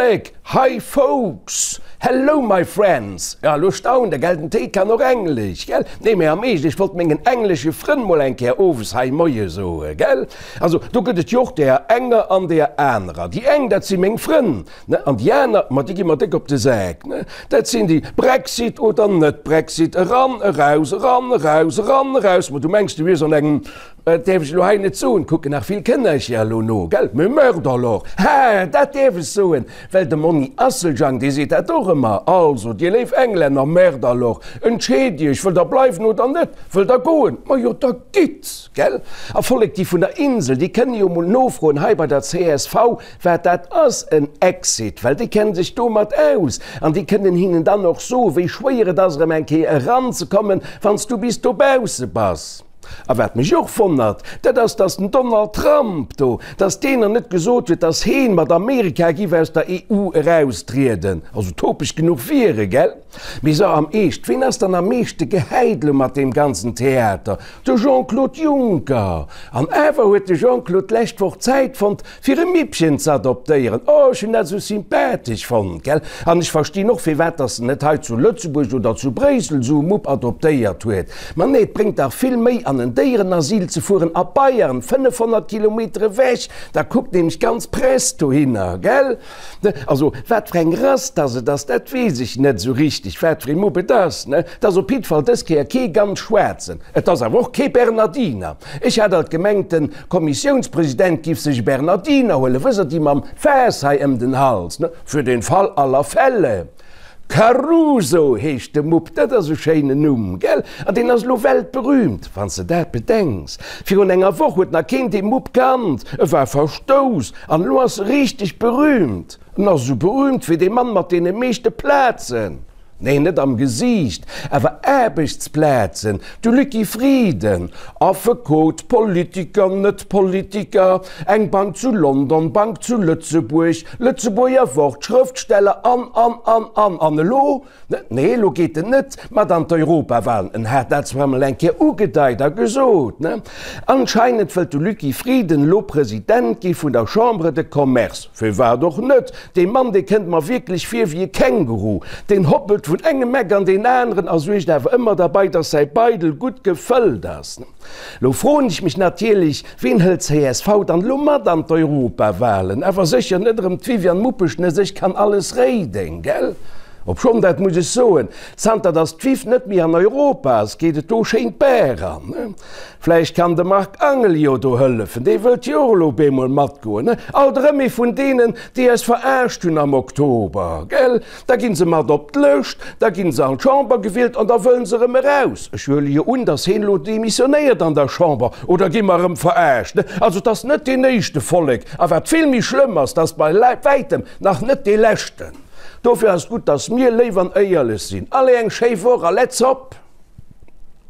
Vollek! Hi folks! Hello my friends! Ja, elo staunt der, gell, den Téi kann och Englesch, gell? Nee, mee am Eescht, ech wollt mengen englesche Frënn mol eng Kéier owes hei Moie soe, gell? Also, do gëtt et jo och deeër enger an deeër anerer. Déi eng, dat si meng Frënn, ne, an déi aner, ma déi gi mer déck op de Sak, ne? Dat sinn déi, Brexit oder net Brexit, eran, eraus, eran, eraus, eran, eraus. Ma du mengs, du wiers an engem Dat däerf ech elo hei net soen, kucken nach vill Kënnercher elo no, gell? Mais merde alors! Ha, dat däerf ech soen, well de Monni Asseljang, dee seet dat och ëmmer. Also, dir léif Englänner, merde alors, entscheet iech, wëllt der bleiwen oder net? Wëllt der goen? Majo, da gitt, gell? A Vollek, déi vun der Insel, déi kënne jo mol nofroen hei bei der csv, wat dat ass, en Exit, well déi kenne sech domat aus an déi kënnen hinnen dann och soen, wéi schwéier et ass, erëm eng Kéier eranzekommen, wann s du bis dobausse bass. A wat mech och wonnert, dat ass, dass den Donald Trump do, dass deen nach net gesot huet, dass heen mat Amerika giff aus der EU eraustrieden. Also topeg genuch wier e, gell? Mee so am Eescht, ween ass dann am meeschte gehäit elo mat deem ganzen Theater? De Jean-Claude Juncker! An awer huet de Jean-Claude d'lescht Woch Zäit fonnt, Fir e Mippchen ze adoptéieren. Oh, ech hunn dat esou sympathesch fonnt, gell? An ech verstinn och, firwat dass en net hei zu Lëtzebuerg oder zu Bréissel esou e Mupp adoptéiert huet. Ma nee, et bréngt dach vill méi, an en Déierenasyl ze fueren a Bayern, 500 Kilometer ewech, da kuckt nämlech d'ganz Press dohinner, gell? Also, wat fir eng Rass dass et ass, dat weess ech net esou richteg, wat fir ee Mupp et ass, ne? Et ass op jiddwer Fall dës Kéier kee ganz schwaarzen. Et ass awer och kee Bernardiner. Ech hat alt gemengt, den Kommissiounspresident giff sech e Bernardiner huelen, wësst Der, déi mam Faass hei ëm den Hals, ne, für den Fall aller Fälle. Caruso heescht de Mupp, dat ass e schéinen Numm, gell? An deen ass elo weltberühmt, wann s de dat bedenks. Virun enger Woch huet nach keen dee Mupp kannt, e war verstouss, an elo ass e richteg berühmt. En ass esou berühmt wéi dee Mann mat deene meeschte Plazen. Nee, net am Gesiicht, awer Aarbechtsplazen, de Lucky Frieden, Affekot, Politiker, Net-Politiker, eng Bank zu London, Bank zu Lëtzebuerg, Lëtzebuerger Wort, Schrëftsteller an, an, an, an. An elo? Nee, elo geet en net mat an d'Europawahlen. En hat dat zwar emol eng Kéier ugedeit a gesot, ne? Anscheinend wëllt de Lucky Frieden elo President gi vun der Chambre de Commerce. Firwat och net? Dee Mann, dee kënnt mer wierklech vir wéi e Känguru. Deen hoppelt vun engem Eck an deen aneren a suergt awer ëmmer derbei, dass säi Beidel gutt gefëllt ass. Lo froen ech mech natierlech, Ween hëlt csv dann elo mat an d'Europawahlen? Awer sécher net erëm d'Viviane Muppeschnëss, ech kann alles réiden, gell? Obschonn, dat muss ech soen, zanter dass d'Viv net méi an Europa ass, geet et do schéin d'Baach eran. Vläicht kann de Marc Angel jo do hëllefen, dee wëllt jo och elo op eemol matgoen, ne? Alt erëm ee vun deenen, déi eis verarscht hunn am Oktober, gell? Da ginn se mat op d'Lëscht, da ginn se an d'Chamber gewielt an da wëllen se erëm eraus. Ech huele jo un, datt heen elo demissionéiert an der Chamber, oder gi mer erëm verarscht, ne? Also et ass net deen éischte Vollek, a wat vill méi schlëmm ass, et ass bei wäitem nach net dee leschten. Dofir ass et gutt, datt mir léif an éierlech sinn. Allez, eng schéi Woch a let's hop!